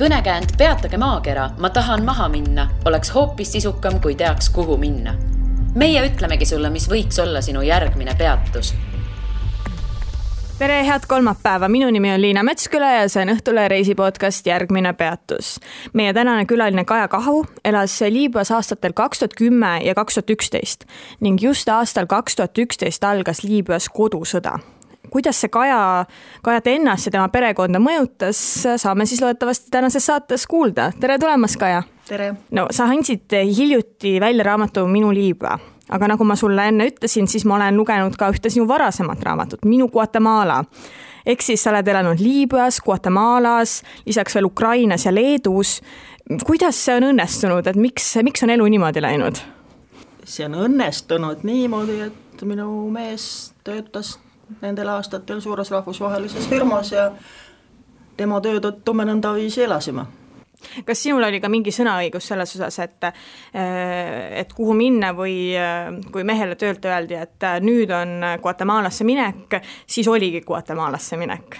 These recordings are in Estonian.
Kõnekäänd Peatage maakera, ma tahan maha minna, oleks hoopis sisukam, kui teaks, kuhu minna. Meie ütlemegi sulle, mis võiks olla sinu järgmine peatus. Tere, head kolmapäeva. Minu nimi on Liina Metsküla ja see on Õhtule reisipodcast Järgmine peatus. Meie tänane külaline Kaja Kahu elas Liibüas aastatel 2010 ja 2011 ning just aastal 2011 algas Liibüas kodusõda. Kuidas see Kajat ennast ja tema perekonda mõjutas, saame siis loodetavasti tänases saates kuulda. Tere tulemast, Kaja! Tere! No, sa andsid hiljuti välja raamatu Minu Liibüa, aga nagu ma sulle enne ütlesin, siis ma olen lugenud ka ühte sinu varasemat raamatut, Minu Guatemala. Ehk siis sa oled elanud Liibüas, Guatemalas, lisaks veel Ukrainas ja Leedus. Kuidas see on õnnestunud, et miks on elu niimoodi läinud? See on õnnestunud niimoodi, et minu mees töötas nendel aastatel suures rahvusvahelises firmas ja tema töö tõttu me nõnda viisi elasime. Kas sinul oli ka mingi sõnaõigus selles osas, et kuhu minna või kui mehele töölt öeldi, et nüüd on Guatemalasse minek, siis oligi Guatemalasse minek?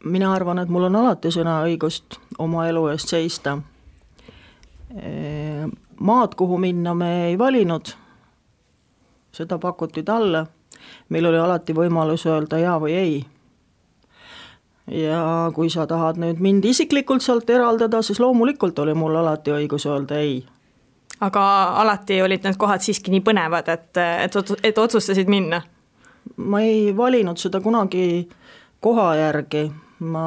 Mina arvan, et mul on alati sõnaõigust oma elu eest seista. Maad, kuhu minna me ei valinud, seda pakuti talle. Meil oli alati võimalus öelda ja või ei. Ja kui sa tahad nüüd mind isiklikult sealt eraldada, siis loomulikult oli mul alati õigus öelda ei. Aga alati olid need kohad siiski nii põnevad, et otsustasid minna? Ma ei valinud seda kunagi koha järgi. Ma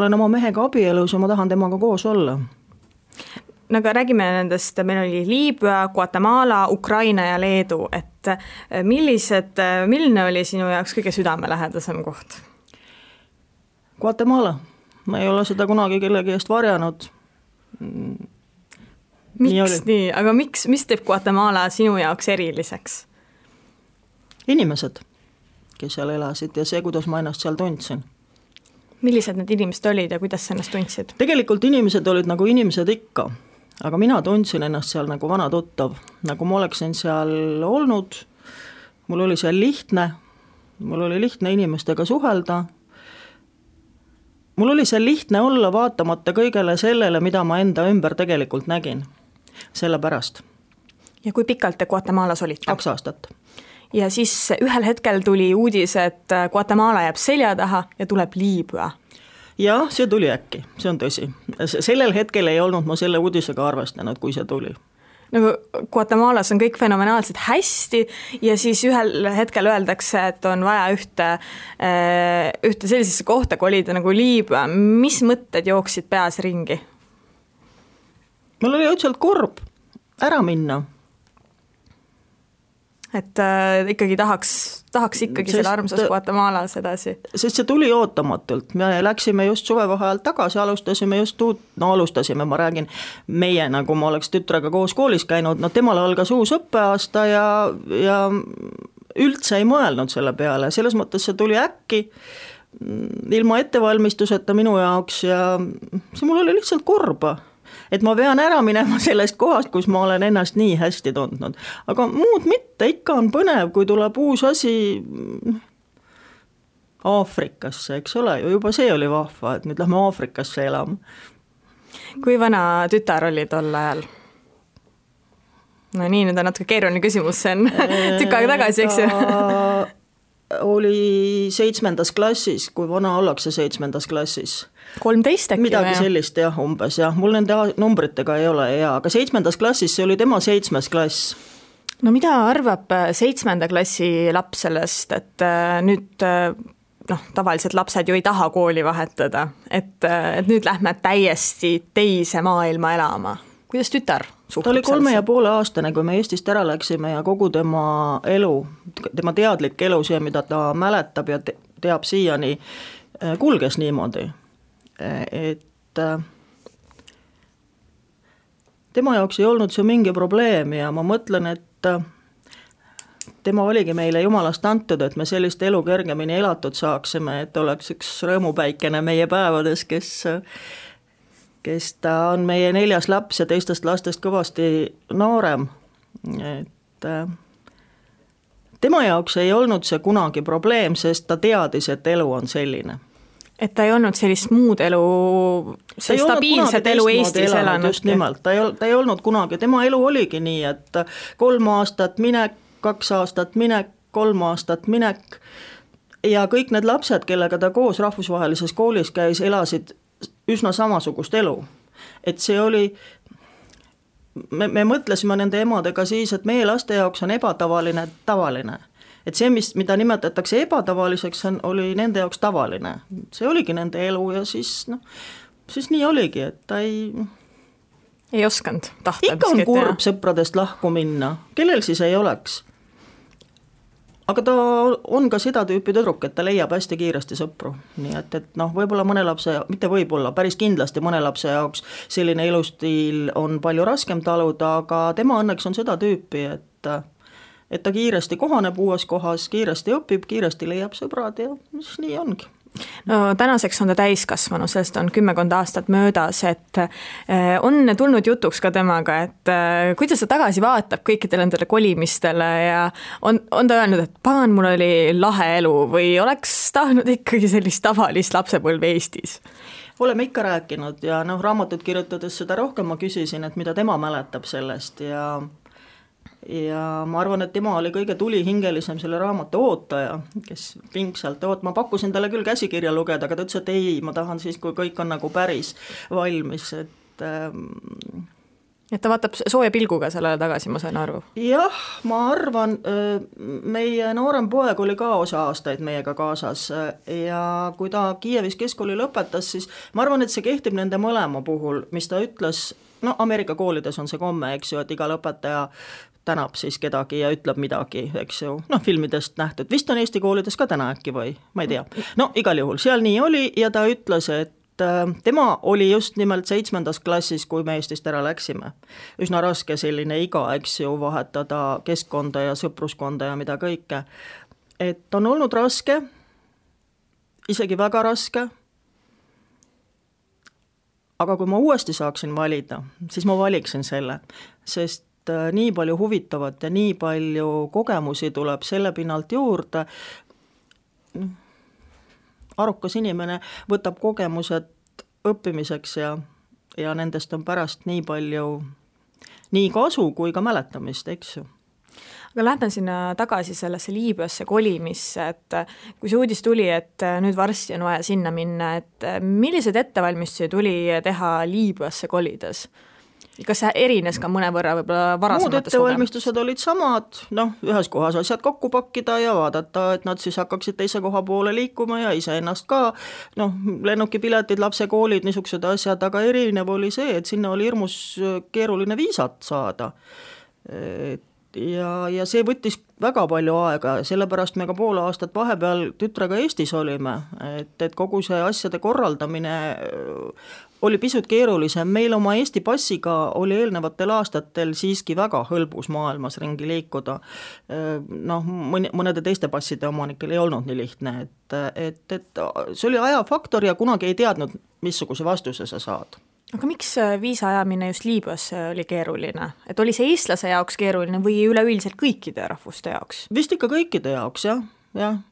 olen oma mehega abielus ja ma tahan temaga koos olla. No aga räägime nendest, meil oli Liibüa, Guatemala, Ukraina ja Leedu, et milline oli sinu jaoks kõige südamelähedasem koht? Guatemala. Ma ei ole seda kunagi kellegi eest varjanud. Miks nii? Aga mis teeb Guatemala sinu jaoks eriliseks? Inimesed, kes seal elasid ja see, kuidas ma ennast seal tundsin. Millised need inimesed olid ja kuidas sa ennast tundsid? Tegelikult inimesed olid nagu inimesed ikka. Aga mina tundsin ennast seal nagu vana tuttav, nagu ma oleksin seal olnud, mul oli seal lihtne, mul oli lihtne inimestega suhelda, mul oli seal lihtne olla vaatamata kõigele sellele, mida ma enda ümber tegelikult nägin, sellepärast. Ja kui pikalt te Guatemalas olite? 2 aastat. Ja siis ühel hetkel tuli uudis, et Guatemala jääb selja taha ja tuleb Liibüa. Jah, see tuli äkki, see on tõsi. Sellel hetkel ei olnud ma selle uudisega arvestanud, kui see tuli. Nagu Guatemalas on kõik fenomenaalselt hästi ja siis ühel hetkel öeldakse, et on vaja ühte sellisesse kohta kolida nagu Liibüa. Mis mõtted jooksid peas ringi? Mul oli õudselt kurb ära minna. Et ikkagi tahaks ikkagi selle armsas Guatemalas edasi. Sest see tuli ootamatult. Me läksime just suvevaheajalt tagasi, alustasime, ma räägin meie, nagu ma oleks tütrega koos koolis käinud, temal algas uus õppeaasta ja üldse ei mõelnud selle peale. Selles mõttes see tuli äkki ilma ettevalmistuseta minu jaoks ja see mul oli lihtsalt kurba. Et ma pean ära minema sellest kohast, kus ma olen ennast nii hästi tundnud. Aga muud mitte, ikka on põnev, kui tuleb uus asi Aafrikasse, eks ole, juba see oli vahva, et nüüd lähme Aafrikasse elama. Kui vana tütar oli tol ajal? No nii, nüüd on natuke keeruline küsimus, see on tükk aega tagasi, eks ju? Oli 7. klassis, kui vana ollakse 7. klassis. 13 äkki? Midagi sellist, jah, umbes, jah. Mul nende numbritega ei ole, jah. Aga 7. klassis see oli tema 7. klass. No mida arvab 7. klassi laps sellest, et nüüd tavaliselt lapsed ju ei taha kooli vahetada, et nüüd lähme täiesti teise maailma elama. Kuidas tütar suhtub? Ta oli 3,5 aastane, kui me Eestist ära läksime ja kogu tema elu, tema teadlik elu, see, mida ta mäletab ja teab siiani, kulges niimoodi. Et tema jaoks ei olnud see mingi probleem ja ma mõtlen, et tema oligi meile jumalast antud, et me sellist elu kergemini elatud saaksime, et oleks üks rõõmupäikene meie päevades, kes ta on meie 4. laps ja teistest lastest kõvasti noorem. Et tema jaoks ei olnud see kunagi probleem, sest ta teadis, et elu on selline. Et ta ei olnud sellist muud elu, see stabiilset elu Eestis elanud. Just nimelt, ta ei olnud kunagi, tema elu oligi nii, et 3 aastat minek, 2 aastat minek, 3 aastat minek ja kõik need lapsed, kellega ta koos rahvusvahelises koolis käis, elasid üsna samasugust elu. Et see oli, me mõtlesime nende emadega siis, et meie laste jaoks on ebatavaline tavaline. Et see, mida nimetatakse ebatavaliseks, oli nende jaoks tavaline. See oligi nende elu ja siis nii oligi, et ta ei osanud tahta. Ikka on kurb sõpradest lahku minna, kellel siis ei oleks. Aga ta on ka seda tüüpi tüdruk, et ta leiab hästi kiiresti sõpru. Nii et võib-olla mõne lapse, mitte võib-olla, päris kindlasti mõne lapse jaoks selline elustiil on palju raskem taluda, aga tema õnneks on seda tüüpi, et ta kiiresti kohaneb uues kohas, kiiresti õpib, kiiresti leiab sõbrad ja siis nii ongi. No tänaseks on ta täiskasvanu, sest on 10 aastat möödas, et on tulnud jutuks ka temaga, et kuidas ta tagasi vaatab kõikidele nendele kolimistele ja on ta öelnud, et pagan, mul oli lahe elu või oleks tahtnud ikkagi sellist tavalist lapsepõlve Eestis? Oleme ikka rääkinud ja raamatut kirjutades seda rohkem ma küsisin, et mida tema mäletab sellest ja ma arvan, et tema oli kõige tulihingelisem selle raamatu ootaja, kes pingsalt ma pakkusin talle küll käsikirja lugeda, aga ta ütles, et ei, ma tahan siis, kui kõik on nagu päris valmis, et ta vaatab sooja pilguga sellele tagasi, ma sain aru. Jah, ma arvan, meie noorem poeg oli ka osa aastaid meiega kaasas ja kui ta Kiievis keskkooli lõpetas, siis ma arvan, et see kehtib nende mõlema puhul, mis ta ütles, Ameerika koolides on see komme, eks ju, et iga lõpetaja tänab siis kedagi ja ütleb midagi, eks ju, filmidest nähtud, vist on Eesti koolides ka täna äkki või, ma ei tea. Igal juhul, seal nii oli ja ta ütles, et tema oli just nimelt 7. klassis, kui me Eestist ära läksime. Üsna raske selline iga, eks ju, vahetada keskkonda ja sõpruskonda ja mida kõike. Et on olnud raske, isegi väga raske, aga kui ma uuesti saaksin valida, siis ma valiksin selle, sest nii palju huvitavat ja nii palju kogemusi tuleb selle pinnalt juurde. Arukas inimene võtab kogemused õppimiseks ja nendest on pärast nii palju nii kasu kui ka mäletamist, eks ju. Aga lähme sinna tagasi sellesse Liibüasse kolimisse, et kui see uudis tuli, et nüüd varsti on vaja sinna minna, et millised ettevalmistusi tuli teha Liibüasse kolides? Kas see erines ka mõne võrra võib-olla varasemates muud ettevalmistused olid samad, ühes kohas asjad kokku pakkida ja vaadata, et nad siis hakkaksid teise koha poole liikuma ja ise ennast ka, lennukipiletid, lapsekoolid, niisugused asjad, aga erinev oli see, et sinna oli hirmus keeruline viisat saada. Ja see võttis väga palju aega, sellepärast me ka pool aastat vahepeal tütrega Eestis olime, et kogu see asjade korraldamine oli pisut keerulisem, meil oma Eesti passiga oli eelnevatel aastatel siiski väga hõlbus maailmas ringi liikuda, mõnede teiste passide omanikel ei olnud nii lihtne, et see oli ajafaktor ja kunagi ei teadnud, missuguse vastuse sa saad. Aga miks viisa ajamine just Liibüasse oli keeruline? Et oli see eestlase jaoks keeruline või üleüldiselt kõikide rahvuste jaoks? Vist ikka kõikide jaoks, jah.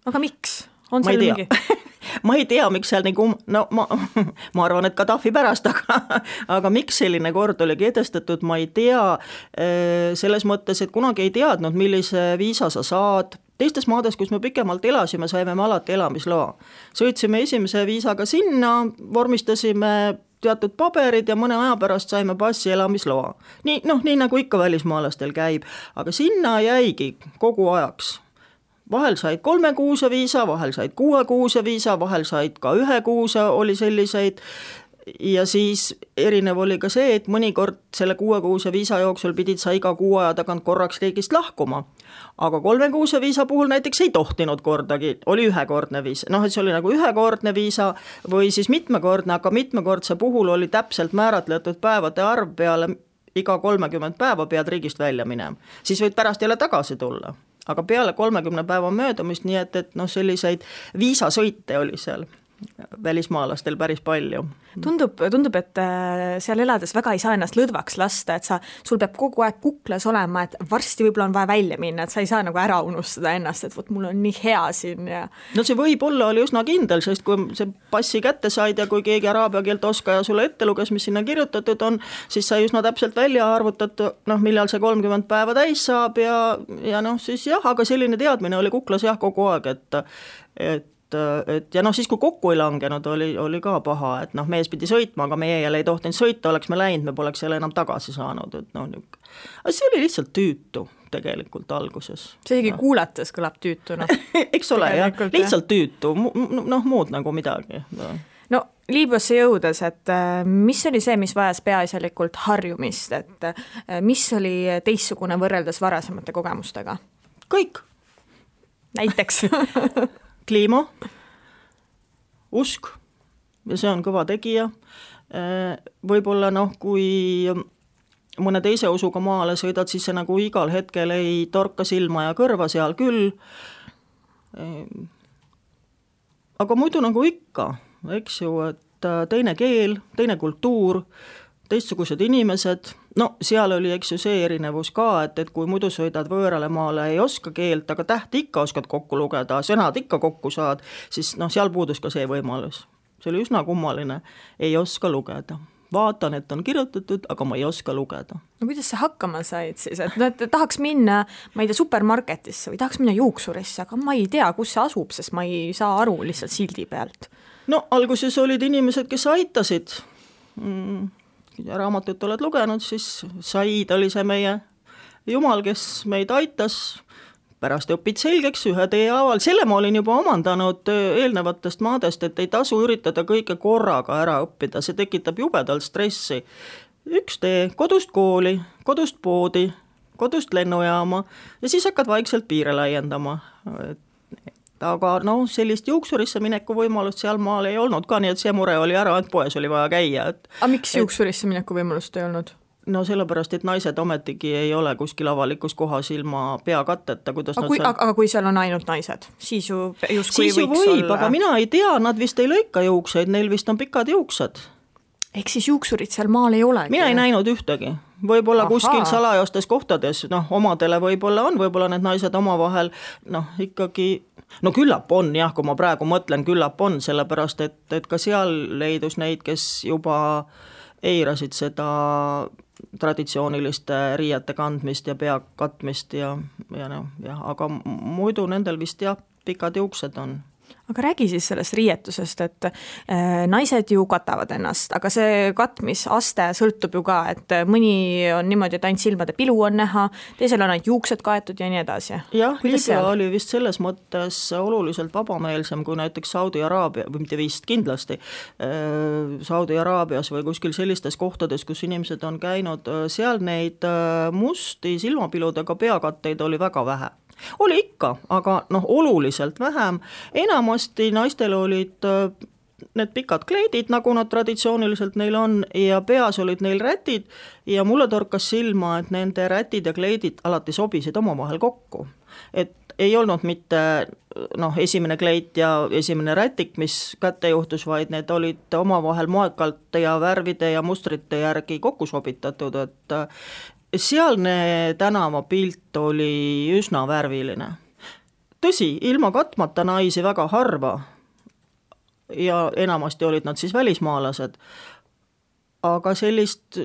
Aga miks? On seal mingi? Ma ei tea, miks seal nagu, ma arvan, et Gaddafi pärast, aga miks selline kord oli kehtestatud, ma ei tea, selles mõttes, et kunagi ei teadnud, millise viisa sa saad. Teistes maades, kus me pikemalt elasime, saime me alati elamisloa. Sõitsime esimese viisaga sinna, vormistasime teatud paberid ja mõne aja pärast saime passi elamisloa. Nii nagu ikka välismaalastel käib, aga sinna jäigi kogu ajaks. Vahel said 3 kuuse viisa, vahel said 6 kuuse viisa, vahel said ka 1 kuuse oli selliseid ja siis erinev oli ka see, et mõnikord selle 6 kuuse viisa jooksul pidid sa iga 6 aja tagant korraks riigist lahkuma. Aga 3 kuuse viisa puhul näiteks ei tohtinud kordagi, oli ühekordne viisa. Et see oli nagu ühekordne viisa või siis mitmekordne, aga mitmekordse puhul oli täpselt määratletud päevade arv peale iga 30 päeva pead riigist välja minema. Siis võid pärast jälle tagasi tulla. Aga peale 30 päeva möödumist, nii et selliseid viisasõite oli seal. välismaalastel päris palju. Tundub, et seal elades väga ei saa ennast lõdvaks lasta, et sul peab kogu aeg kuklas olema, et varsti võib-olla on vaja välja minna, et sa ei saa nagu ära unustada ennast, et vot mul on nii hea siin ja... No see võib-olla oli üsna kindel, sest kui see passi kätte said ja kui keegi araabia keelt oskaja sulle ette luges, mis sinna kirjutatud on, siis sai üsna täpselt välja arvutatud, millal see 30 päeva täis saab ja siis jah, aga selline teadmine oli kuklas jah kogu aeg, et ja siis kui kokku ei langenud, oli ka paha, et mees pidi sõitma, aga meie jälle ei tohtinud sõita, oleks me läinud, me poleks jälle enam tagasi saanud, et aga see oli lihtsalt tüütu tegelikult alguses. See isegi kuulates kõlab tüütuna. Eks ole, jah, lihtsalt tüütu, muud nagu midagi. No Liibüasse jõudes, et mis oli see, mis vajas peaasjalikult harjumist, et mis oli teistsugune võrreldes varasemate kogemustega? Kõik. Näiteks? Kliima, usk ja see on kõva tegija. Võib-olla kui mõne teise usuga maale sõidad, siis see nagu igal hetkel ei torka silma ja kõrva seal küll. Aga muidu nagu ikka, eks ju, et teine keel, teine kultuur, teistsugused inimesed, seal oli eks ju see erinevus ka, et kui muidu sõidad võõrale maale, ei oska keelt, aga tähti ikka oskad kokku lugeda, sõnad ikka kokku saad, siis seal puudus ka see võimalus. See oli üsna kummaline, ei oska lugeda. Vaatan, et on kirjutatud, aga ma ei oska lugeda. No kuidas sa hakkama said siis? Et tahaks minna, ma ei tea, supermarketisse või tahaks minna juuksurisse, aga ma ei tea, kus see asub, sest ma ei saa aru lihtsalt sildi pealt. No alguses olid inimesed, kes aitasid. Raamatut oled lugenud, siis Said oli see meie jumal, kes meid aitas, pärast õpid selgeks ühe tee haaval, selle ma olin juba omandanud eelnevatest maadest, et ei tasu üritada kõike korraga ära õppida, see tekitab jubedalt stressi. Üks tee, kodust kooli, kodust poodi, kodust lennujaama ja siis hakkad vaikselt piire laiendama. Aga sellist juuksurisse mineku võimalust seal maal ei olnud ka, nii et see mure oli ära, et poes oli vaja käia. Aga miks juuksurisse mineku võimalust ei olnud? No sellepärast, et naised ometigi ei ole kuskil avalikus kohas ilma peakatteta. Aga kui seal on ainult naised, siis ju justkui võiks olla. Aga mina ei tea, nad vist ei lõika juukseid, neil vist on pikad juuksed. Ehk siis juuksurid seal maal ei olegi? Mina ei näinud ühtegi. Võib-olla kuskil salajastes kohtades, omadele võib-olla on, võib-olla need naised omavahel, ikkagi, küllap on jah, kui ma praegu mõtlen, küllap on, sellepärast, et ka seal leidus neid, kes juba eirasid seda traditsiooniliste riiete kandmist ja pea katmist aga muidu nendel vist jah, pikad juuksed on. Aga räägi siis sellest riietusest, et naised ju katavad ennast, aga see katmisaste sõltub ju ka, et mõni on niimoodi, et ainult silmade pilu on näha, teisel on ainult juuksed kaetud ja nii edasi. Jah, Liibüa oli vist selles mõttes oluliselt vabameelsem kui näiteks Saudi Araabia, või mitte vist kindlasti, Saudi Araabias või kuskil sellistes kohtades, kus inimesed on käinud, seal neid musti silmapiludega peakatteid oli väga vähe. Oli ikka, aga oluliselt vähem. Enamasti naistel olid need pikad kleidid, nagu nad traditsiooniliselt neil on, ja peas olid neil rätid ja mulle torkas silma, et nende rätid ja kleidid alati sobisid omavahel kokku. Et ei olnud mitte esimene kleit ja esimene rätik, mis kätte juhtus, vaid need olid omavahel moekalt ja värvide ja mustrite järgi kokku sobitatud, et sealne tänavapilt oli üsna värviline. Tõsi, ilma katmata naisi väga harva ja enamasti olid nad siis välismaalased, aga sellist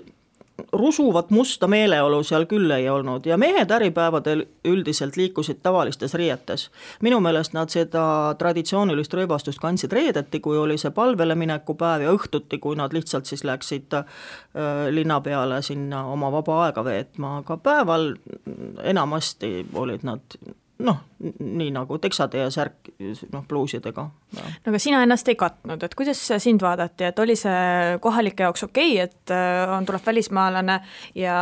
rusuvat musta meeleolu seal küll ei olnud ja mehed äripäevadel üldiselt liikusid tavalistes riietes. Minu meelest nad seda traditsioonilist rõivastust kandsid reedeti, kui oli see palvele mineku päev ja õhtuti, kui nad lihtsalt siis läksid linna peale sinna oma vaba aega veetma, aga päeval enamasti olid nad nii nagu teksade ja särk pluusidega. Aga sina ennast ei katnud, et kuidas sind vaadati, et oli see kohalike jaoks okei, et tuleb välismaalane ja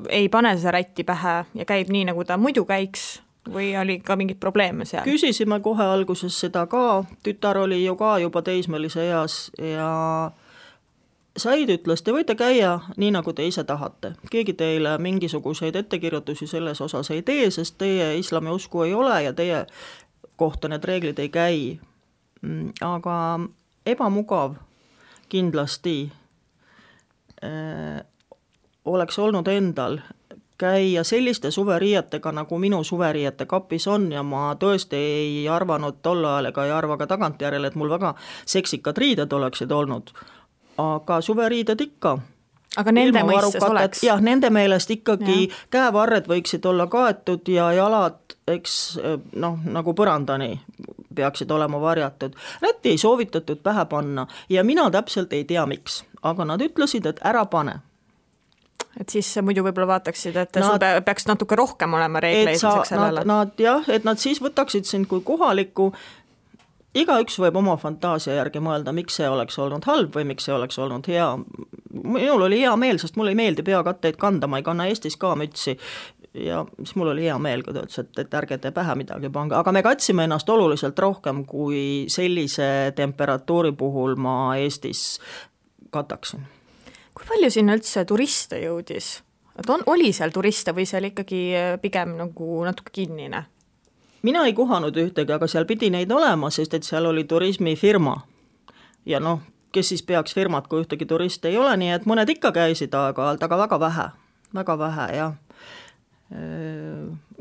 ei pane seda rätti pähe ja käib nii, nagu ta muidu käiks või oli ka mingid probleeme seal? Küsisime kohe alguses seda ka, tütar oli ju ka juba teismelise eas ja Said ütles, te võite käia nii, nagu te ise tahate. Keegi teile mingisuguseid ettekirjutusi selles osas ei tee, sest teie islami usku ei ole ja teie kohta need reeglid ei käi. aga ebamugav kindlasti oleks olnud endal käia selliste suveriietega, nagu minu suveriiete kapis on ja ma tõesti ei arvanud tol ajal ega ei arva ka tagantjärele, et mul väga seksikad riided oleksid olnud, aga suveriided ikka. Aga nende mõistes oleks? Jah, nende meelest ikkagi käevarred võiksid olla kaetud ja jalad, eks nagu põrandani peaksid olema varjatud. Rätti ei soovitatud pähe panna ja mina täpselt ei tea miks, aga nad ütlesid, et ära pane. Et siis muidu võib-olla vaataksid, et sul peaks natuke rohkem olema reegleid sellele. Et nad siis võtaksid sind kui kohalikku, igaüks võib oma fantaasia järgi mõelda, miks see oleks olnud halb või miks see oleks olnud hea. Minul oli hea meel, sest mulle ei meeldi peakatteid kanda, ma ei kanna Eestis ka mütsi ja siis mul oli hea meel, kui ta ütles, et ärge te pähe midagi pange, aga me katsime ennast oluliselt rohkem, kui sellise temperatuuri puhul ma Eestis kataksin. Kui palju sinna üldse turiste jõudis? Et oli seal turiste või seal ikkagi pigem nagu natuke kinnine? Mina ei kohanud ühtegi, aga seal pidi neid olema, sest et seal oli turismifirma. Ja kes siis peaks firmat, kui ühtegi turiste ei ole, nii et mõned ikka käisid aeg-ajalt, aga väga vähe, jah.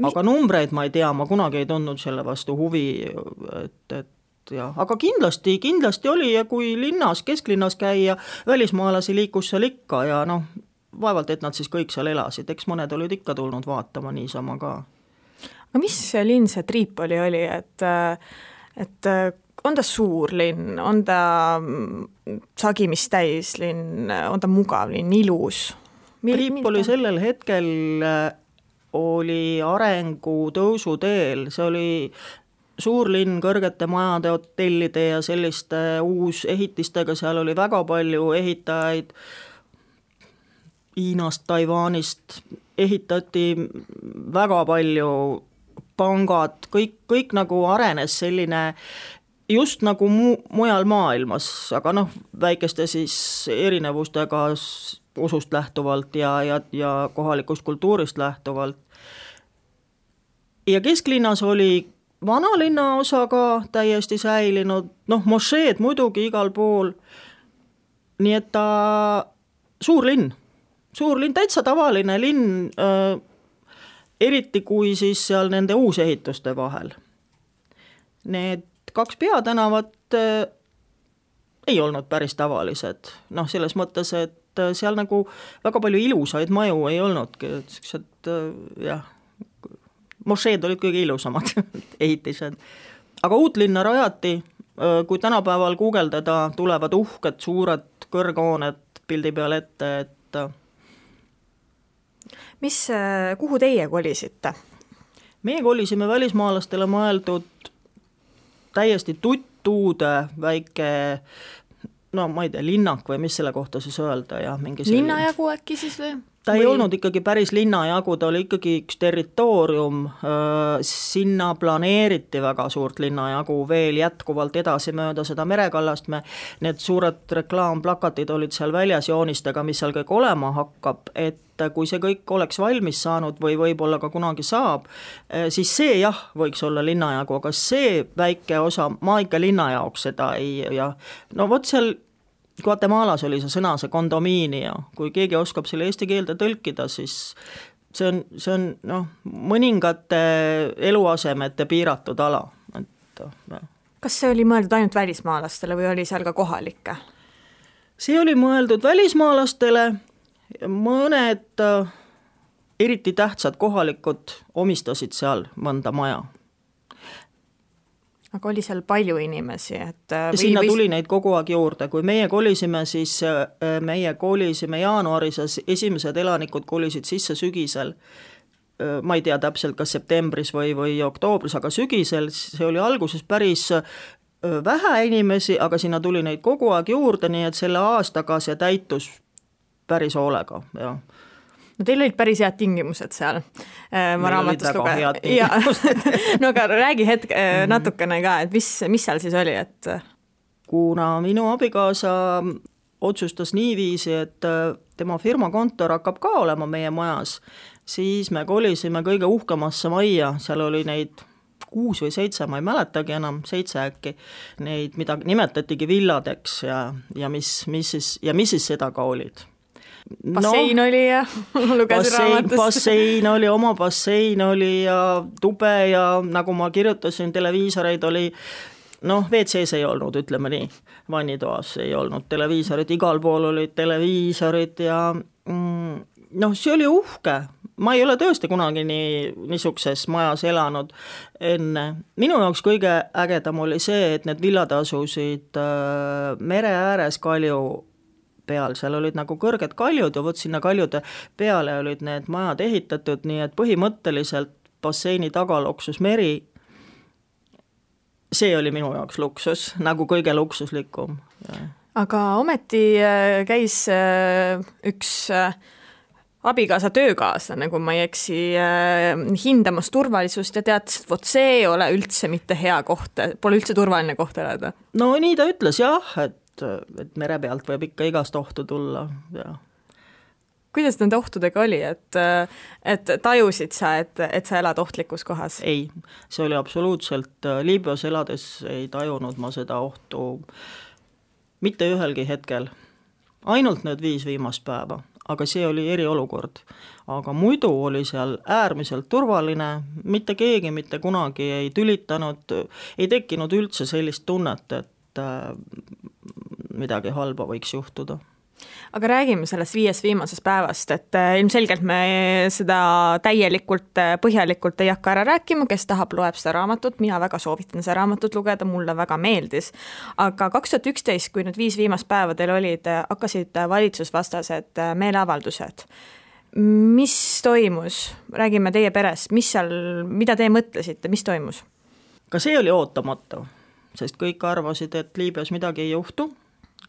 Aga numbreid ma ei tea, ma kunagi ei tundnud selle vastu huvi, et ja, aga kindlasti oli ja kui linnas, kesklinnas käia, välismaalasi liikus seal ikka ja vaevalt, et nad siis kõik seal elasid, eks mõned olid ikka tulnud vaatama niisama ka. Aga mis linn see Tripoli oli, et on ta suur linn, on ta sagimist täis linn, on ta mugav linn, ilus? Tripoli sellel hetkel oli arengu tõusu teel, see oli suur linn kõrgete majade, hotellide ja selliste uusehitistega, seal oli väga palju ehitajaid Hiinast, Taiwanist, ehitati väga palju pangad, kõik nagu arenes selline just nagu mujal maailmas, aga väikeste siis erinevustega usust lähtuvalt ja kohalikust kultuurist lähtuvalt. Ja kesklinnas oli vanalinna osa ka täiesti säilinud, mošeed muidugi igal pool, nii et ta suur linn, täitsa tavaline linn, eriti kui siis seal nende uusehituste vahel. Need 2 peatänavat ei olnud päris tavalised, selles mõttes, et seal nagu väga palju ilusaid maju ei olnudki, jah, mošeed olid kõige ilusamad ehitised. Aga uut linna rajati, kui tänapäeval guugeldada, tulevad uhked, suured kõrghooned pildi peal ette, et kuhu teie kolisite? Meie kolisime välismaalastele mõeldud täiesti tuttuude väike, ma ei tea, linnak või mis selle kohta siis öelda. Ja linnajagu äkki siis või? Ta ei olnud ikkagi päris linnajagu, ta oli ikkagi üks territoorium, sinna planeeriti väga suurt linnajagu veel jätkuvalt edasi mööda seda merekallast, need suured reklaamplakatid olid seal väljas joonistega, mis seal kõik olema hakkab, et kui see kõik oleks valmis saanud või võib-olla ka kunagi saab, siis see jah, võiks olla linnajagu, aga see väike osa, ma ikka linna jaoks seda ei, vot seal Guatemalas oli see sõna, see kondomiinia, kui keegi oskab selle eesti keelde tõlkida, siis see on mõningate eluasemete piiratud ala. Kas see oli mõeldud ainult välismaalastele või oli seal ka kohalikke? See oli mõeldud välismaalastele, mõned eriti tähtsad kohalikud omistasid seal mõnda maja. Aga oli seal palju inimesi? Sinna tuli neid kogu aeg juurde, kui meie kolisime, siis meie kolisime jaanuaris, esimesed elanikud kolisid sisse sügisel, ma ei tea täpselt, kas septembris või oktoobris, aga sügisel, see oli alguses päris vähe inimesi, aga sinna tuli neid kogu aeg juurde, nii et selle aastaga see täitus päris hoolega, jah. No teil olid päris head tingimused seal. Meil olid väga head tingimused. No aga räägi natukene ka, et mis seal siis oli? Kuna minu abikaasa otsustas niiviisi, et tema firma kontor hakkab ka olema meie majas, siis me kolisime kõige uhkemasse majja, seal oli neid 6 või 7, ma ei mäletagi enam, 7 äkki, neid, mida nimetatigi villadeks ja mis siis seda ka olid. Bassein oli ja lugesin raamatust. Bassein oli, oma bassein oli ja tube ja nagu ma kirjutasin, televiisoreid oli, WC-s ei olnud, ütleme nii, vannitoas ei olnud televiisorid, igal pool olid televiisorid ja see oli uhke. Ma ei ole tõesti kunagi niisuguses majas elanud enne. Minu jaoks kõige ägedam oli see, et need villad asusid mere ääres kalju peal, seal olid nagu kõrged kaljud ja vot sinna kaljude peale olid need majad ehitatud, nii et põhimõtteliselt basseini taga loksus meri. See oli minu jaoks luksus, nagu kõige luksuslikum. Aga ometi käis üks abikaasa töökaaslane, kui ma ei eksi, hindamas turvalisust ja teatas, et vot see ei ole üldse mitte hea koht, pole üldse turvaline koht elada. No nii ta ütles jah, et mere pealt võib ikka igast ohtu tulla. Ja. Kuidas nende ohtudega oli, et tajusid sa, et sa elad ohtlikus kohas? Ei, see oli absoluutselt, Liibüas elades ei tajunud ma seda ohtu mitte ühelgi hetkel, ainult need 5 viimast päeva. Aga see oli eriolukord. Aga muidu oli seal äärmiselt turvaline, mitte keegi mitte kunagi ei tülitanud, ei tekkinud üldse sellist tunnet, et midagi halba võiks juhtuda. Aga räägime sellest 5 viimasest päevast, et ilmselgelt me seda täielikult, põhjalikult ei hakka ära rääkima, kes tahab, loeb seda raamatut, mina väga soovitan seda raamatut lugeda, mulle väga meeldis. Aga 2011, kui need 5 viimast päeva teil olid, hakkasid valitsusvastased meeleavaldused. Mis toimus? Räägime teie perest, mida te mõtlesite, mis toimus? Ka see oli ootamatu, sest kõik arvasid, et Liibüas midagi ei juhtu.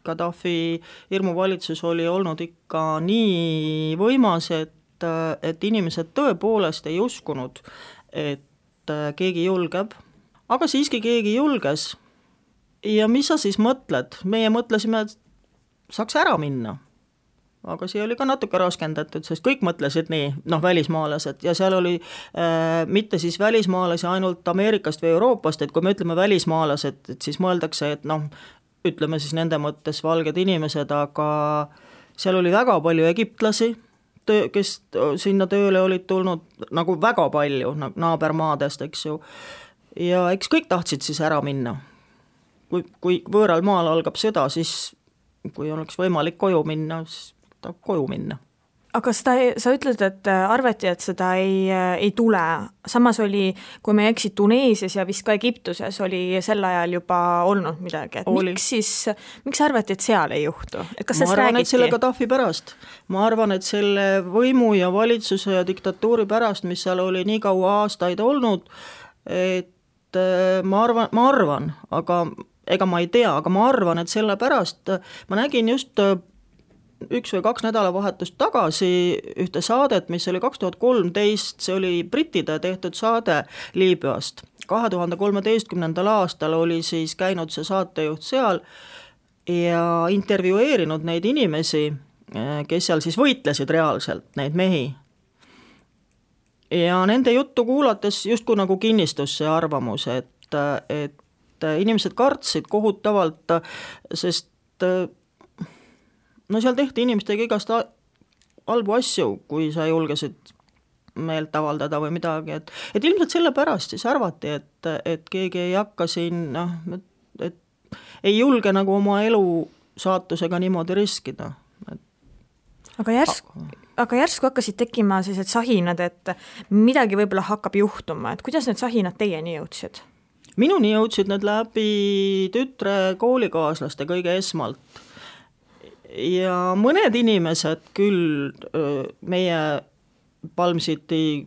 Gaddafi hirmuvalitsus oli olnud ikka nii võimas, et inimesed tõepoolest ei uskunud, et keegi julgeb. Aga siiski keegi julges. Ja mis sa siis mõtled? Meie mõtlesime, et saaks ära minna. Aga see oli ka natuke raskendatud, sest kõik mõtlesid nii, välismaalased, ja seal oli mitte siis välismaalasi ainult Ameerikast või Euroopast, et kui me ütleme välismaalased, et siis mõeldakse, et ütleme siis nende mõttes valged inimesed, aga seal oli väga palju egiptlasi, kes sinna tööle olid tulnud, nagu väga palju naabermaadest, eks ju, ja eks kõik tahtsid siis ära minna. Kui võõral maal algab sõda, siis kui oleks võimalik koju minna, siis tahab koju minna. Aga sa ütled, et arvati, et seda ei tule. Samas oli, kui me eksid Tuneesias ja vist ka Egiptuses, oli sel ajal juba olnud midagi. Miks arvati, et seal ei juhtu? Ma arvan, et selle Gaddafi pärast. Ma arvan, et selle võimu ja valitsuse ja diktatuuri pärast, mis seal oli nii kaua aastaid olnud, et ma arvan, aga ega ma ei tea, aga ma arvan, et selle pärast ma nägin just 1 või 2 nädalavahetust tagasi ühte saadet, mis oli 2013, see oli brittide tehtud saade Liibüast. 2013. aastal oli siis käinud see saatejuht seal ja intervjueerinud neid inimesi, kes seal siis võitlesid reaalselt, neid mehi. Ja nende juttu kuulates justkui nagu kinnistus see arvamus, et inimesed kartsid kohutavalt, sest seal tehti inimestega igast halbu asju, kui sa julgesid meelt avaldada või midagi, et ilmselt selle pärast siis arvati, et keegi ei hakka siin, et ei julge nagu oma elu saatusega niimoodi riskida. Aga järsku hakkasid tekkima sellised sahinad, et midagi võib-olla hakkab juhtuma, et kuidas need sahinad teieni jõudsid? Minuni jõudsid need läbi tütre koolikaaslaste kõige esmalt. Ja mõned inimesed küll meie Palm City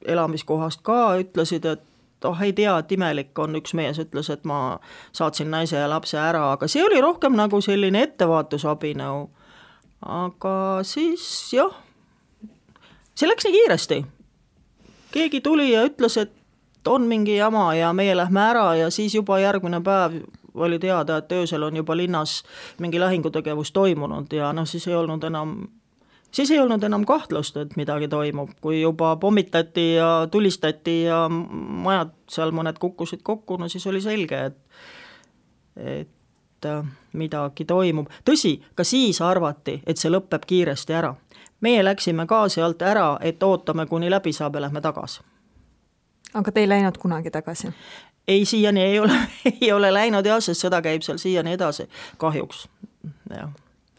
elamiskohast ka ütlesid, et ei tea, et imelik on, üks mees ütles, et ma saatsin naise ja lapse ära, aga see oli rohkem nagu selline ettevaatusabinõu. Aga siis jah, see läks nii kiiresti. Keegi tuli ja ütles, et on mingi jama ja meie lähme ära ja siis juba järgmine päev oli teada, et öösel on juba linnas mingi lahingutegevus toimunud ja siis ei olnud enam siis ei olnud enam kahtlust, et midagi toimub, kui juba pommitati ja tulistati ja majad seal mõned kukkusid kokku, no siis oli selge, et midagi toimub. Tõsi, ka siis arvati, et see lõpeb kiiresti ära. Meie läksime ka sealt ära, et ootame, kuni läbi saab ja lähme tagasi. Aga te ei läinud kunagi tagasi? Ei, siiani ei ole läinud jah, sest sõda käib seal siiani edasi, kahjuks, jah.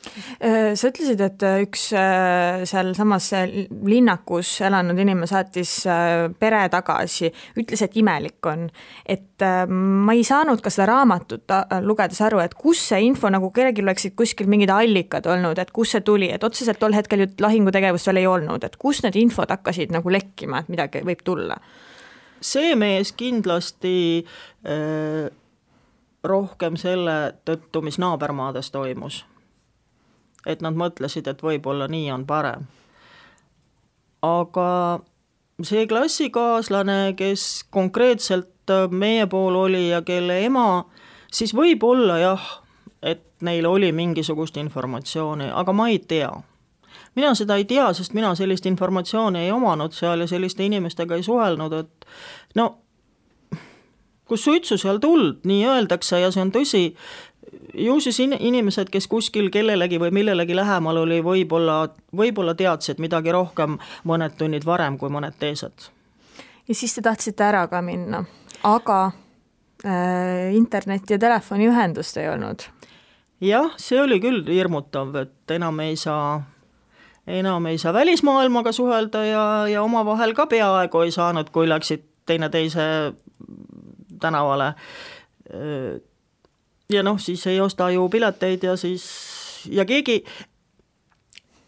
Sa ütlesid, et üks seal samas linnakus elanud inimene saatis pere tagasi, ütles, et imelik on. Et ma ei saanud ka seda raamatut lugedes aru, et kus see info, nagu kellelgi oleksid kuskil mingid allikad olnud, et kus see tuli, et otseselt tol hetkel ju lahingutegevust veel ei olnud, et kus need infod hakkasid nagu lekkima, et midagi võib tulla? See mees kindlasti rohkem selle tõttu, mis naabermaades toimus. Et nad mõtlesid, et võib-olla nii on parem. Aga see klassikaaslane, kes konkreetselt meie pool oli ja kelle ema, siis võib-olla jah, et neil oli mingisugust informatsiooni, aga ma ei tea. Mina seda ei tea, sest mina sellist informatsiooni ei omanud seal ja selliste inimestega ei suhelnud, et no, kus suitsu seal tuld, nii öeldakse ja see on tõsi, ju siis inimesed, kes kuskil kellelegi või millelegi lähemal oli, võib-olla teadsid midagi rohkem mõned tunnid varem kui mõned teised. Ja siis te tahtsite ära ka minna, aga internet ja telefoni ühendust ei olnud? Jah, see oli küll hirmutav, et enam ei saa välismaailmaga suhelda ja omavahel ka peaaegu ei saanud, kui läksid teineteise tänavale. Ja noh, siis ei osta ju pileteid ja keegi,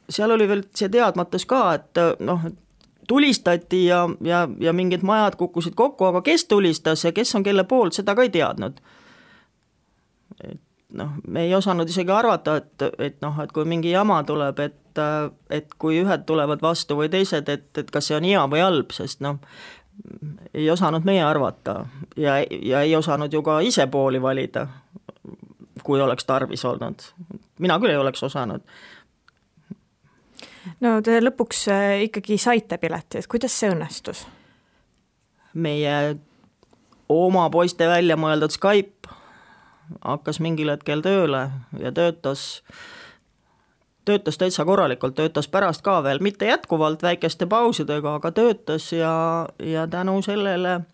seal oli veel see teadmatus ka, et noh, tulistati ja mingid majad kukkusid kokku, aga kes tulistas ja kes on kelle poolt, seda ka ei teadnud. Noh, me ei osanud isegi arvata, et kui mingi jama tuleb, et kui ühed tulevad vastu või teised, et kas see on hea või halb, sest noh, ei osanud meie arvata ja ei osanud ju ka ise pooli valida, kui oleks tarvis olnud. Mina küll ei oleks osanud. No te lõpuks ikkagi saite pileti, et kuidas see õnnestus? Meie oma poiste välja mõeldud Skype hakkas mingil hetkel tööle ja töötas täitsa korralikult, töötas pärast ka veel, mitte jätkuvalt väikeste pausidega, aga töötas ja tänu sellele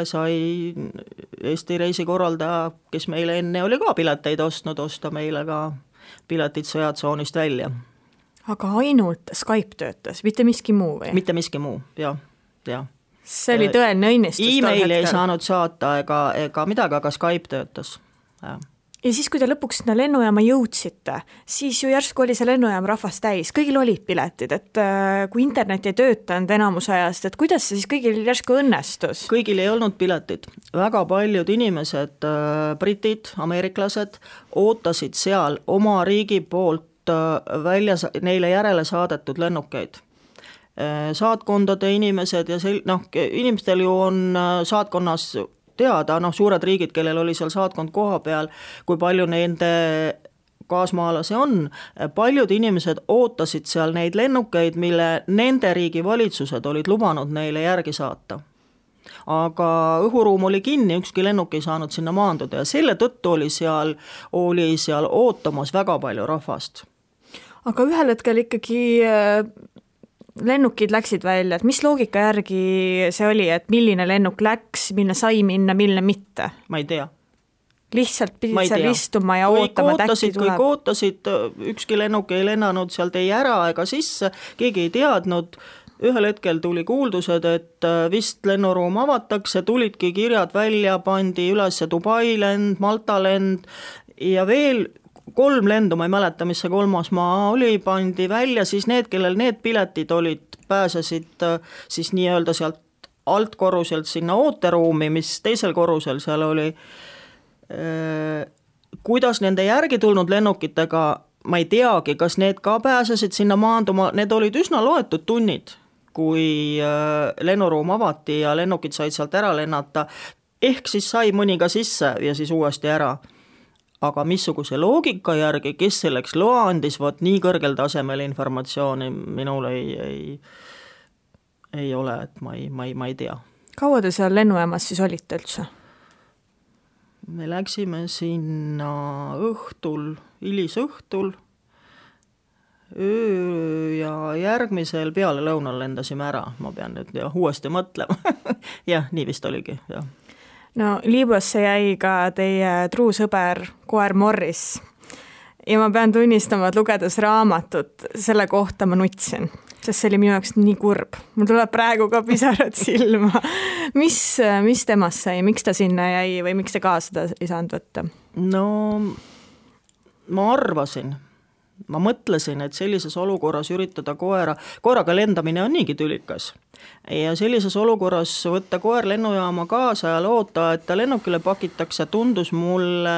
sai Eesti reisikorraldaja, kes meile enne oli ka pileteid ostnud, osta meile ka piletid sõjatsoonist välja. Aga ainult Skype töötas, mitte miski muu või? Mitte miski muu, jah. See oli tõeline õnnistus. E-maili ei saanud saata ega midagi, aga Skype töötas, jah. Ja siis, kui te lõpuks sinna lennujaama jõudsite, siis ju järsku oli see lennujaam rahvast täis, kõigil olid piletid, et kui internet ei töötanud enamus ajast, et kuidas see siis kõigil järsku õnnestus? Kõigil ei olnud piletid. Väga paljud inimesed, britid, ameeriklased, ootasid seal oma riigi poolt välja neile järele saadetud lennukeid. Saatkondade inimesed ja inimestel ju on saatkonnas teada, suured riigid, kellel oli seal saatkond koha peal, kui palju nende kaasmaalasi on. Paljud inimesed ootasid seal neid lennukeid, mille nende riigi valitsused olid lubanud neile järgi saata. Aga õhuruum oli kinni, ükski lennuk ei saanud sinna maanduda ja selle tõttu oli seal ootamas väga palju rahvast. Aga ühel hetkel ikkagi lennukid läksid välja, et mis loogika järgi see oli, et milline lennuk läks, milline sai minna, milline mitte? Ma ei tea. Lihtsalt pidid seal istuma ja ootama, et äkki tuleb. Kõik ootasid, ükski lennuk ei lennanud sealt ei ära ega sisse, keegi ei teadnud. Ühel hetkel tuli kuuldused, et vist lennuruum avatakse, tulidki kirjad välja, pandi üles Dubai lend, Malta lend ja veel 3 lendu, ma ei mäleta, mis see 3. maa oli, pandi välja, siis need, kellel need piletid olid, pääsesid siis nii-öelda sealt altkorruselt sinna ooteruumi, mis teisel korrusel seal oli. Kuidas nende järgi tulnud lennukitega, ma ei teagi, kas need ka pääsesid sinna maanduma, need olid üsna loetud tunnid, kui lennuruum avati ja lennukid said sealt ära lennata, ehk siis sai mõni ka sisse ja siis uuesti ära. aga missuguse loogika järgi, kes selleks loa andis, vot nii kõrgel tasemel informatsiooni minul ei ole, et ma ei tea. Kaua te seal lennujaamas siis olite üldse? Me läksime sinna õhtul, hilisõhtul, öö ja järgmisel peale lõunal lendasime ära, ma pean nüüd uuesti mõtlema. Jah, nii vist oligi, jah. No Liibüasse jäi ka teie truu sõber koer Morris ja ma pean tunnistama, et lugedes raamatut selle kohta ma nutsin, sest see oli minu jaoks nii kurb. Mul tuleb praegu ka pisarad silma. Mis temast sai, miks ta sinna jäi või miks te kaasa seda ei saanud võtta? No ma mõtlesin, et sellises olukorras üritada koeraga lendamine on niigi tülikas. Ja sellises olukorras võtta koer lennujaama kaasa ja loota, et ta lennukile pakitakse, tundus mulle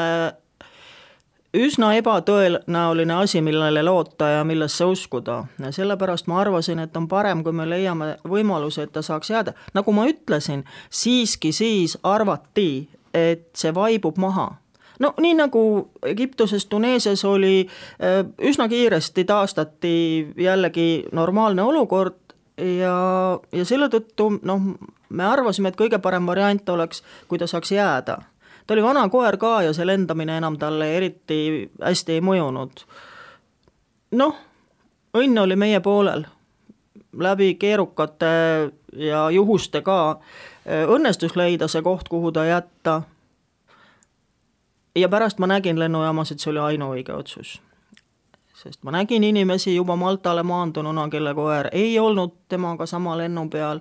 üsna ebatõenäoline asi, millele loota ja millesse uskuda. Ja sellepärast ma arvasin, et on parem, kui me leiame võimaluse, et ta saaks jääda. Nagu ma ütlesin, siiski siis arvati, et see vaibub maha. No nii nagu Egiptuses, Tuneesias oli, üsna kiiresti taastati jällegi normaalne olukord ja selle tõttu me arvasime, et kõige parem variant oleks, kui ta saaks jääda. Ta oli vana koer ka ja see lendamine enam talle eriti hästi ei mõjunud. Õnn oli meie poolel. Läbi keerukate ja juhuste ka õnnestus leida see koht, kuhu ta jätta. Ja pärast ma nägin lennujaamas, et see oli ainuõige otsus. Sest ma nägin inimesi juba Maltale maandununa, kelle koer ei olnud temaga sama lennu peal.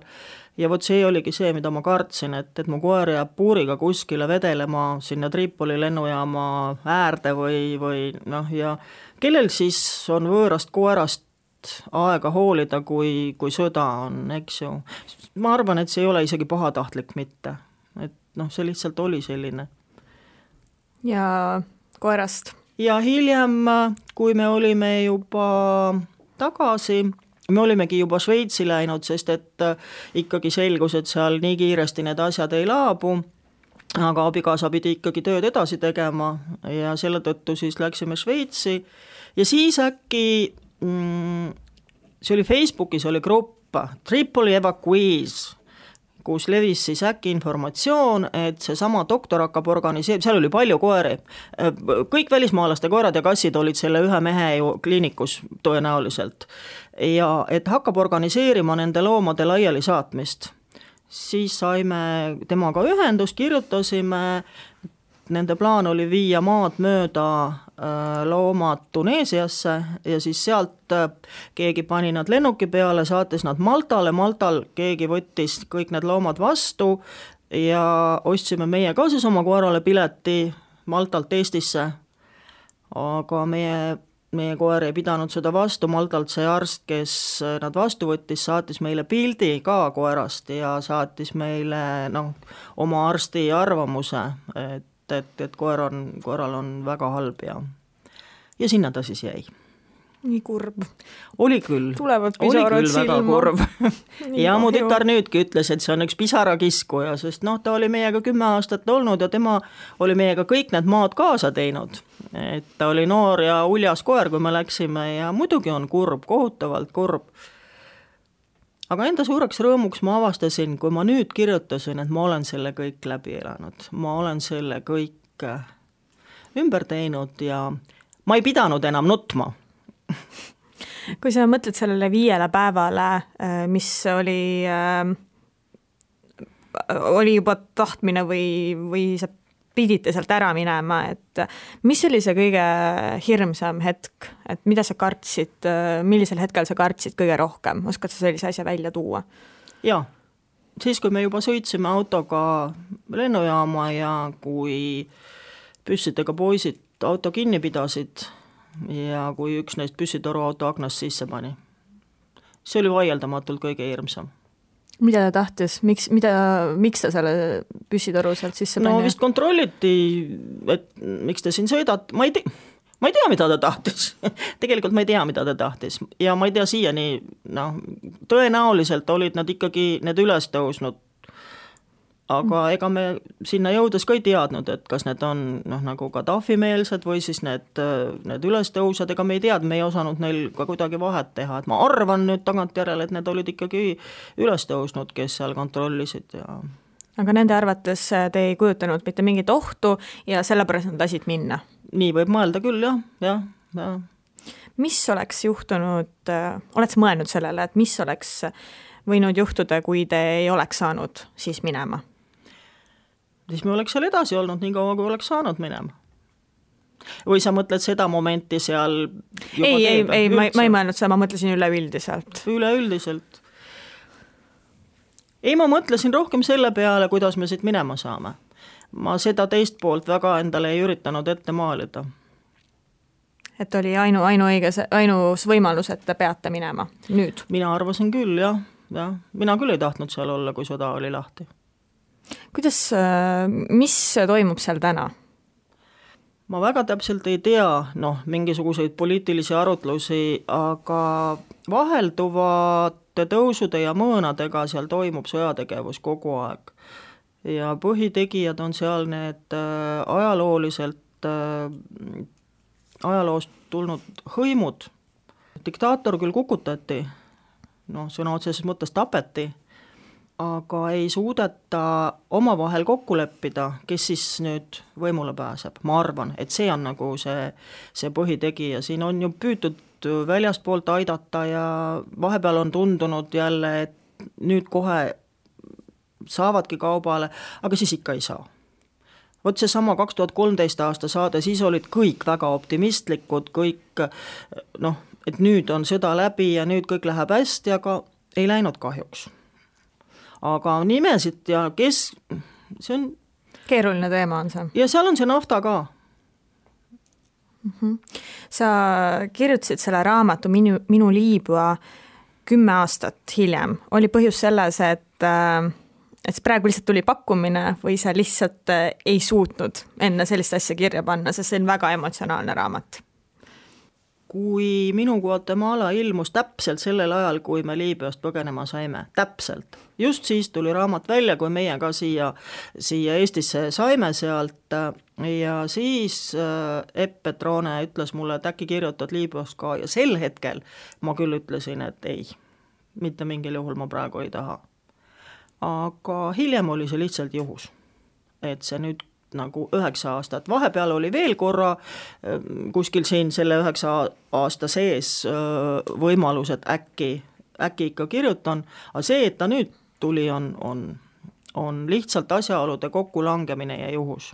Ja vot see oligi see, mida ma kartsin, et mu koer jääb puuriga kuskile vedelema sinna Tripoli lennujaama äärde või ja kellel siis on võõrast koerast aega hoolida, kui sõda on, eks ju. Ma arvan, et see ei ole isegi pahatahtlik mitte. Et see lihtsalt oli selline. Ja koerast? Ja hiljem, kui me olime juba tagasi, me olimegi juba Šveitsi läinud, sest et ikkagi selgus, et seal nii kiiresti need asjad ei laabu, aga abikaasa pidi ikkagi tööd edasi tegema ja selle tõttu siis läksime Šveitsi ja siis äkki, see oli Facebookis oli grupp Tripoli Evacuees, kus levis siis äkki informatsioon, et see sama doktor hakkab organiseerima, seal oli palju koeri, kõik välismaalaste koerad ja kassid olid selle ühe mehe ju kliinikus tõenäoliselt ja et hakkab organiseerima nende loomade laiali saatmist. Siis saime temaga ühendust, kirjutasime, nende plaan oli viia maad mööda loomad Tuneesiasse ja siis sealt keegi pani nad lennuki peale, saatis nad Maltal keegi võttis kõik need loomad vastu ja ostsime meie ka siis oma koerale pileti Maltalt Eestisse, aga meie koer ei pidanud seda vastu, Maltalt see arst, kes nad vastu võttis, saatis meile pildi ka koerast ja saatis meile oma arsti arvamuse, et koeral on väga halb ja sinna ta siis jäi. Nii kurb. Oli küll. Tulevad pisarad silma. Väga kurb. Ja mu tütar nüüdki ütles, et see on üks pisarakiskuja, sest ta oli meiega 10 aastat olnud ja tema oli meiega kõik need maad kaasa teinud. Et ta oli noor ja uljas koer, kui me läksime ja muidugi on kurb, kohutavalt kurb. Aga enda suureks rõõmuks ma avastasin, kui ma nüüd kirjutasin, et ma olen selle kõik läbi elanud. Ma olen selle kõik ümber teinud ja ma ei pidanud enam nutma. Kui sa mõtled sellele 5 päevale, mis oli juba tahtmine või sa pidite sealt ära minema, et mis oli see kõige hirmsam hetk, et mida sa kartsid, millisel hetkel sa kartsid kõige rohkem, oskad sa sellise asja välja tuua? Jaa, siis kui me juba sõitsime autoga lennujaama ja kui püssidega poisid auto kinni pidasid ja kui üks neist püssitoru auto aknast sisse pani. See oli vaieldamatult kõige hirmsam. Mida ta tahtis? Miks ta selle püssitoru sealt sisse pani? No vist kontrolliti, et miks te siin sõidad. Ma ei tea, mida ta tahtis. Tegelikult ma ei tea, mida ta tahtis. Ja ma ei tea siiani, tõenäoliselt olid nad ikkagi need üles tõusnud. aga ega me sinna jõudes ka ei teadnud, et kas need on nagu Gaddafi-meelsed või siis need ülestõusjad, ega me ei teadnud, me ei osanud neil ka kuidagi vahet teha, et ma arvan nüüd tagantjärele, et need olid ikkagi ülestõusnud, kes seal kontrollisid ja aga nende arvates te ei kujutanud mitte mingit ohtu ja sellepärast nad lasid minna? Nii võib mõelda küll, jah. Mis oleks juhtunud, oled sa mõelnud sellele, et mis oleks võinud juhtuda, kui te ei oleks saanud siis minema? Siis me oleks seal edasi olnud nii kaua, kui oleks saanud minema. Või sa mõtled seda momenti seal juba ei, ma ei mõelnud seda, ma mõtlesin üleüldiselt. Üleüldiselt. Ei, ma mõtlesin rohkem selle peale, kuidas me siit minema saame. Ma seda teist poolt väga endale ei üritanud ette maalida. Et oli ainus võimalus, et te peate minema nüüd? Mina arvasin küll, jah. Mina küll ei tahtnud seal olla, kui sõda oli lahti. Mis toimub seal täna? Ma väga täpselt ei tea, mingisuguseid poliitilisi arutlusi, aga vahelduvate tõusude ja mõõnadega seal toimub sõjategevus kogu aeg. Ja põhitegijad on seal need ajaloost tulnud hõimud. Diktaator küll kukutati, sõna otseses mõttes tapeti, aga ei suudeta omavahel kokku leppida, kes siis nüüd võimule pääseb. Ma arvan, et see on nagu see põhitegija. Siin on ju püütud väljastpoolt aidata ja vahepeal on tundunud jälle, et nüüd kohe saavadki kaubale, aga siis ikka ei saa. Vot see sama 2013 aasta saade, siis olid kõik väga optimistlikud, kõik, et nüüd on sõda läbi ja nüüd kõik läheb hästi, aga ei läinud kahjuks. Aga nimesid ja kes, see on keeruline teema on see. Ja seal on see nafta ka. Sa kirjutasid selle raamatu Minu Liibüa 10 aastat hiljem. Oli põhjus selles, et praegu lihtsalt tuli pakkumine või sa lihtsalt ei suutnud enne sellist asja kirja panna, sest see on väga emotsionaalne raamat? Kui Minu Guatemala ilmus täpselt sellel ajal, kui me Liibüast põgenema saime, täpselt. Just siis tuli raamat välja, kui meie ka siia Eestisse saime sealt ja siis Epp Petrone ütles mulle, et äkki kirjutad Liibüast ka ja sel hetkel ma küll ütlesin, et ei, mitte mingil juhul ma praegu ei taha. Aga hiljem oli see lihtsalt juhus, et see nüüd nagu 9 aastat. Vahepeal oli veel korra kuskil siin selle 9 aasta sees võimalus, et äkki ikka kirjutan, aga see, et ta nüüd tuli, on lihtsalt asjaolude kokkulangemine ja juhus.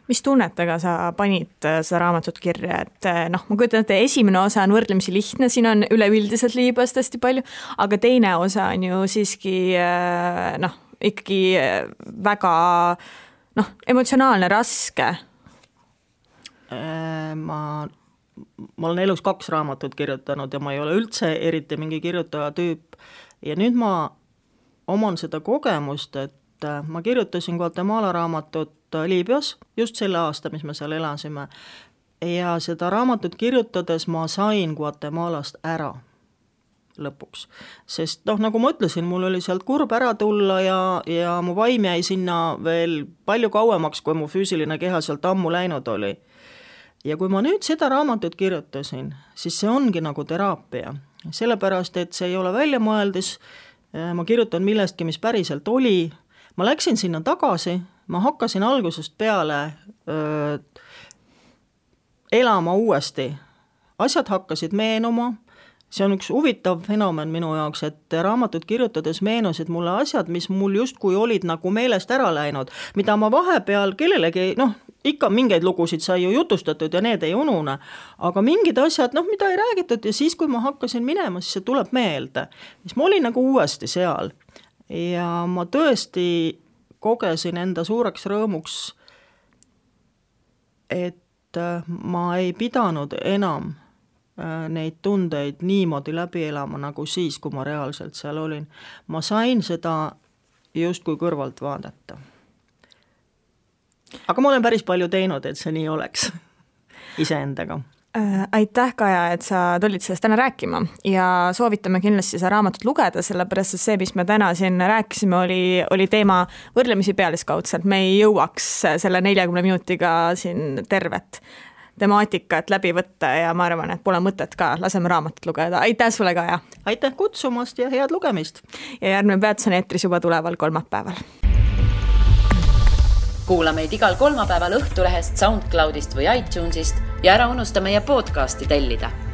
Mis tunnetega sa panid seda raamatut kirja, et ma kujutan, et esimene osa on võrdlemisi lihtne, siin on üleüldiselt Liibüast hästi palju, aga teine osa on ju siiski ikkagi väga emotsionaalne, raske. Ma olen elus 2 raamatut kirjutanud ja ma ei ole üldse eriti mingi kirjutaja tüüp ja nüüd ma oman seda kogemust, et ma kirjutasin Guatemala raamatut Liibüas just selle aasta, mis me seal elasime ja seda raamatut kirjutades ma sain Guatemalast ära lõpuks, sest nagu ma ütlesin, mul oli sealt kurb ära tulla ja mu vaim jäi sinna veel palju kauemaks, kui mu füüsiline keha sealt ammu läinud oli. Ja kui ma nüüd seda raamatut kirjutasin, siis see ongi nagu teraapia, sellepärast, et see ei ole väljamõeldis, ma kirjutan millestki, mis päriselt oli, ma läksin sinna tagasi, ma hakkasin algusest peale elama uuesti, asjad hakkasid meenuma. See on üks huvitav fenomen minu jaoks, et raamatut kirjutades meenusid mulle asjad, mis mul justkui olid nagu meelest ära läinud, mida ma vahepeal kellelegi, ikka mingeid lugusid sai ju jutustatud ja need ei unune, aga mingid asjad, mida ei räägitud ja siis, kui ma hakkasin minema, siis see tuleb meelde. Siis ma olin nagu uuesti seal ja ma tõesti kogesin enda suureks rõõmuks, et ma ei pidanud enam neid tundeid niimoodi läbi elama nagu siis, kui ma reaalselt seal olin. Ma sain seda justkui kõrvalt vaadata. Aga ma olen päris palju teinud, et see nii oleks iseendaga. Aitäh, Kaja, et sa tulid sellest täna rääkima ja soovitame kindlasti seda raamatut lugeda, sellepärast et see, mis me täna siin rääkisime, oli teema võrdlemisi pealiskaudselt. Me ei jõuaks selle 40 minutiga siin tervet temaatikat läbi võtta ja ma arvan, et pole mõtet ka, laseme raamatut lugeda. Aitäh sulle, Kaja! Aitäh kutsumast ja head lugemist! Ja järgmine peatus on eetris juba tuleval kolmapäeval. Kuula meid igal kolmapäeval Õhtulehest, SoundCloudist või iTunesist ja ära unusta meie podcasti tellida.